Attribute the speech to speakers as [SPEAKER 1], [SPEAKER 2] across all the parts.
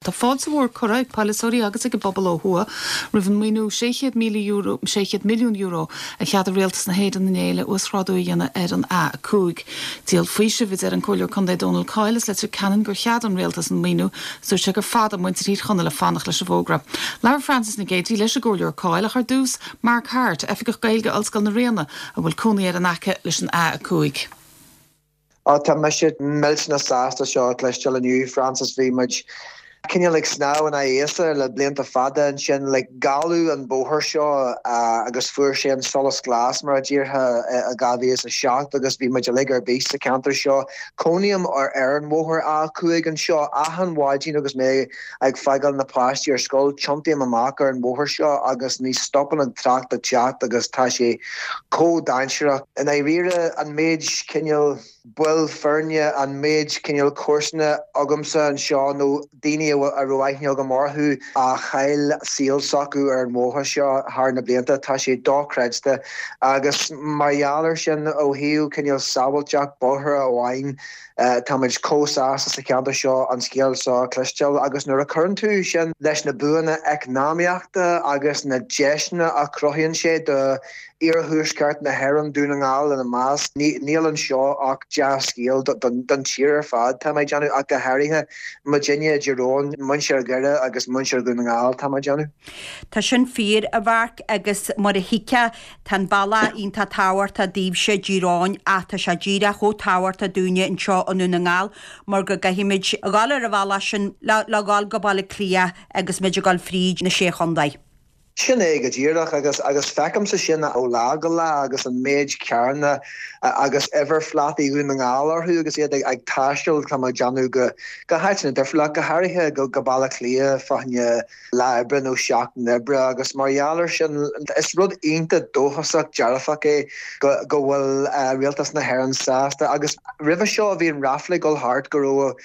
[SPEAKER 1] Tá fáilte mhór curtha ag polaiteoirí agus ag an bpobal ó thuaidh roimh an maoiniú €600,000, €600 milliún, a cheadaigh Rialtas na hÉireann inné le uasghrádú a dhéanamh ar an A5. Díol faoisimh, a deir an Comhairleoir Contae Dónal Coyle as Leitir Ceanainn gur cheadaigh an Rialtas an maoiniú is dúirt sé gur fada muintir Thír Chonaill ag fanacht leis an bhfógra. Labhair Frances Nic Géadaigh leis an gComhairleoir Coyle ach ar dtús, Mark Harte, Oifigeach Gaeilge Ollscoil na Ríona, a bhfuil cónaí air in aice leis an A5.
[SPEAKER 2] Á, tá mise millteanach sásta seo a chloisteáil inniu, Frances. Bhí muid cineál ag snámh in aghaidh easa le blianta fada ansin. Like, gealladh an bóthar seo agus fuair sé an solas glas, mar a déarfá, i 2007 agus bhí muid uilig ar bís sa cheantar seo. Cónaím ar an bhóthar A5 anseo. Achan mhaidin agus mé ag fágáil na páistí ar scoil, tiontaím amach ar an bhóthar seo agus ní stopann an trácht ag teacht agus tá sé chomh dainséarach. I ndáiríre, an méid cineál baill foirne, an méid cineál comharsana agamsa anseo nó daoine a raibh aithne agam orthu a chaill saol s'acu ar an bhóthar seo thar na blianta, tá sé dochreidte. Agus mar gheall air sin, ó thaobh cineál sábháilteacht bóithre amháin, Táimid chomh sásta sa cheantar seo an scéal seo a chloisteáil agus nuair a chuireann tú sin leis na buanna eacnamaíochta agus na deiseanna a chruthaíonn sé do iarthuaisceart na hÉireann, Dún na nGall ina measc, níl anseo ach dea-scéal don tír ar fad, tá mé ag déanamh, ach go háirithe muidinne i dTír Eoghain, muintir Dhoire agus muintir Dhún na nGall, tá mé ag déanamh.
[SPEAKER 3] Tá sin fíor, a Mharc, agus mar a thuigfeá, Tá an bealach iontach tábhachtach daoibhse i dTír Eoghain ach tá sé díreach chomh tábhachtach dúinne anseo i nDún na nGall mar go gcaithfimid a dhul ar an bhealach sin le le dhul go Baile Átha Cliath agus muid ag dul fríd na Sé Chontae.
[SPEAKER 2] Sin é go díreach agus agus feicimse sin ó lá go lá agus an méid carranna agus uimhirphlátaí Dhún na nGall orthu agus iad ag taisteal, tá mé ag déanamh, go go háiteanna difriúla, go háirithe go go Baile Átha Cliath fá choinne lá oibre nó seachtain oibre agus mar gheall air sin is rud iontach dóchasach dearfach é go go bhfuil Rialtas na hÉireann sásta agus roimhe seo bhí an ráfla ag dul thart go raibh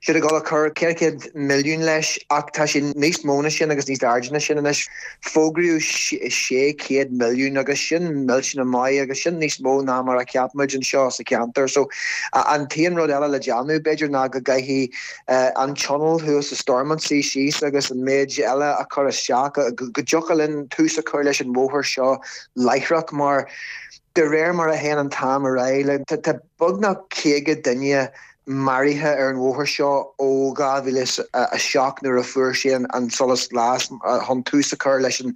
[SPEAKER 2] siad ag dul a cur 400 milliún leis ach tá sé níos mó ná sin agus níos airde ná sin anois. Fógraíodh 600 milliún agus sin millteanach maith agus sin níos mó ná mar a cheap muid anseo sa cheantar so an t-aon rud eile le déanamh b'fhéidir ná go gcaithfidh an tionól thuas i Stormont suí síos agus an méid eile a chur isteach, go dtiocfadh linn tús a chur leis an bhóthar seo láithreach mar de réir mar a théann an t-am ar aghaidh, tá beagnach 50 duine maraithe ar an bhóthar seo ó 2007 nuair a fuair sé an solas glas chun tús a chur leis an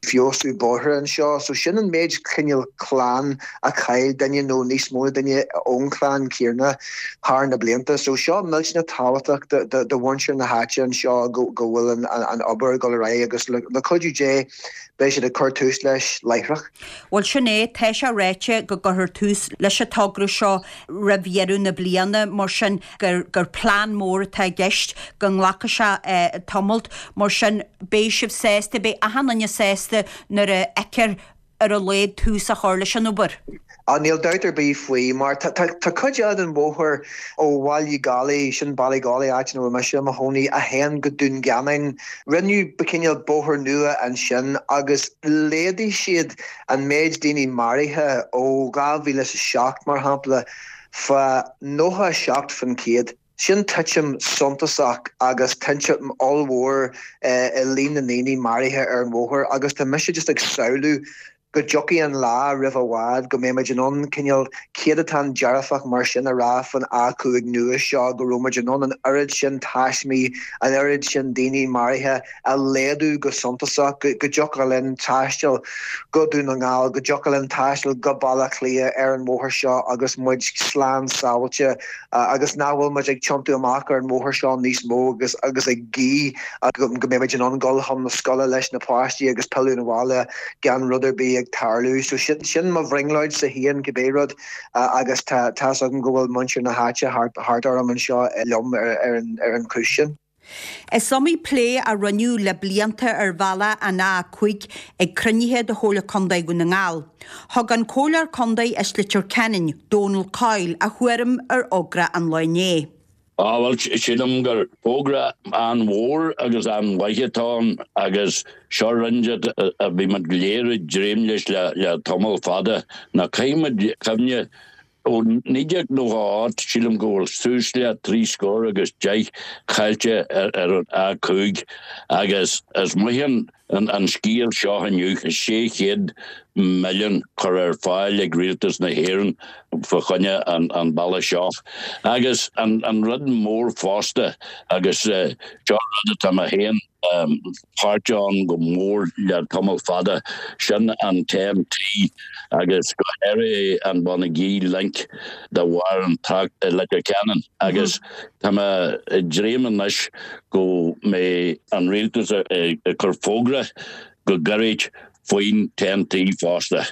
[SPEAKER 2] feabhsú bóithre anseo. So sin an méid cineál clann a chaill duine nó níos mó ná duine ón chlann céanna thar na blianta. So seo millteanach tábhachtach do mhuintir na háite anseo go bhfuil an obair ag dul ar aghaidh agus le cuidiú Dé beidh siad ag cur tús leis láithreach.
[SPEAKER 3] Bhuel sin é, tá sé ráite go gcuirfear tús leis an togra seo roimh dheireadh na bliana, mar sin gur gur plean mór atá i gceist, go nglacfaidh sé tamalt, mar sin beidh sibh sásta, beidh achan duine sásta nuair a fheicfear ar a laghad tús á chur leis an obair.
[SPEAKER 2] Á, níl dabht ar bith faoi, mar tá cuid eile den bhóthar ó Bhaile Gálaí, sin Ballygawley, áit ina bhfuil mise i mo chónaí, a théann go Dún Geanainn. Rinneadh cineál bóthar nua ansin agus laghdaigh siad an méid daoine maraithe ó 2007, mar shampla, fá 97%. Sin titim suntasach agus titim ollmhór i líon na ndaoine maraithe ar an bhóthar agus tá mise just ag samhlú go dtiocfaidh an lá roimh i bhfad go mbeidh muid in ann cineál céadatán dearfach mar sin a rá faoin A5 nua seo, go raibh muid in ann an oiread sin taismí, an oiread sin daoine maraithe a laghdú go suntasach, go dtiocfadh linn taisteal go Dún na nGall, go dtiocfadh linn taisteal go Baile Átha Cliath ar an bhóthar seo agus muid slán sábháilte. agus nach bhfuil muid ag tiontú amach ar an mbóthar seo níos mó agus agus ag guí go mbeidh muid in ann dul chun na scoile leis na páistí agus pilleadh 'na bhaile gan rud ar bith ag tarlú. So sin sin mo bhrionglóidse féin cibé rud agus tá tá's agam go bhfuil muintir na háite thart thart orm anseo liom ar ar an ar an chúis sin.
[SPEAKER 3] Is iomaí plé a rinneadh le blianta ar bhealach an A5 ag cruinnithe de Chomhairle Contae Dhún na nGall. Thug an Comhairleoir Contae as Leitir Ceanainn, Dónal Coyle, a thuairim ar fhógra an lae inné.
[SPEAKER 4] Á, bhuel, sílim gur fógra an-mhór agus an-mhaith atá ann agus seo rud a bhí muid go léir ag dréim leis le tamall fada. Ná caithfidh muid cuimhne. Ó 1998, sílim go bhfuil suas le trí scór agus 10 caillte ar an A5 agus is maith an scéal seo inniu, 600 milliún curtha ar fáil ag Rialtas na hÉireann fá choinne an bealaigh seo. Agus an rud mór fosta, agus seo rud atá mé féin páirteach ann go mór le tamall fada, sin an TEN-T agus go háirithe an Bonagee Link de bharr an trácht i Leitir Ceanainn agus tá mé ag dréim anois go mbeidh an rialtas ag cur fógra go gairid faoin TEN-T fosta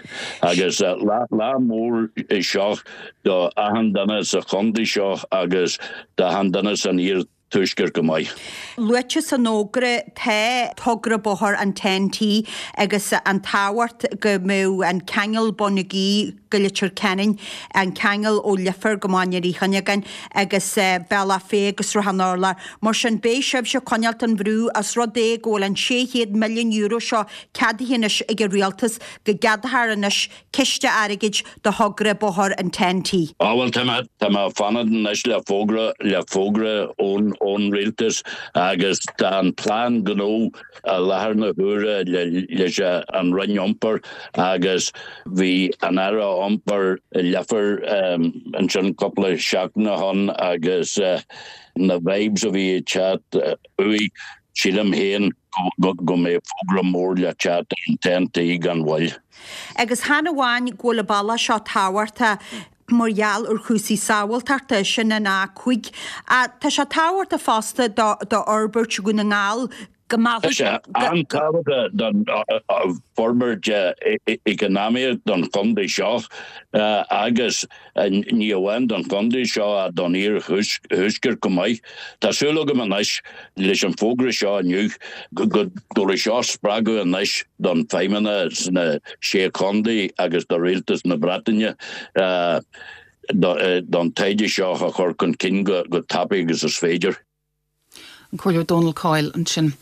[SPEAKER 4] agus lá mór é seo do achan duine sa chontae seo agus d'achan duine san iar Tuaisceart go maith.
[SPEAKER 3] Luaite san fhógra tá togra bóthair an TEN-T agus an tábhacht go mbeadh an ceangal Bonagee go Leitir Ceanainn, an ceangal ó Leifear go Máinliar Uí Chuinneagáin agus Bealach Féich agus Sruthán an Urláir. Mar sin beidh sibhse ag coinneáilt an bhrú os rud é go bhfuil an €600 milliún seo ceadaithe anois ag an Rialtas go gceadófar anois ciste airgid do thogra bóthair an TEN-T.
[SPEAKER 4] Á bhuel tá mé, tá mé ag fanacht anois le fógra, le fógra ón, ón Rialtas agus tá an plean gnó i láthair na huaire le, leis an Roinn Iompair agus bhí an Aire Iompair i Leifear ansin cúpla seachtain ó shin agus na vibes a bhí ag teacht uaidh, sílim féin go mbeidh fógra mór le teacht ar an TEN-T gan mhoill.
[SPEAKER 3] Agus chan amháin go bhfuil an bealach seo tábhachtach mar gheall ar chúrsaí sábháilteachta, sin an A5, ach tá sé tábhachtach fosta d'fhorbairt Dhún na nGall, go
[SPEAKER 4] Tá sé an-tábhachtach don forbairt eacnamaíoch don chontae seo agus ní amháin don chontae seo ach don iarthuaisceart chomh maith. Tá súil agam anois leis an bhfógra seo inniu go dtabharfaidh seo spreagadh anois don Feidhmeannas sna Sé Chontae agus do Rialtas na Breataine don taighde seo a chur chun cinn go tapaidh agus is féidir.
[SPEAKER 1] An Comhairleoir Dónal Coyle ansin.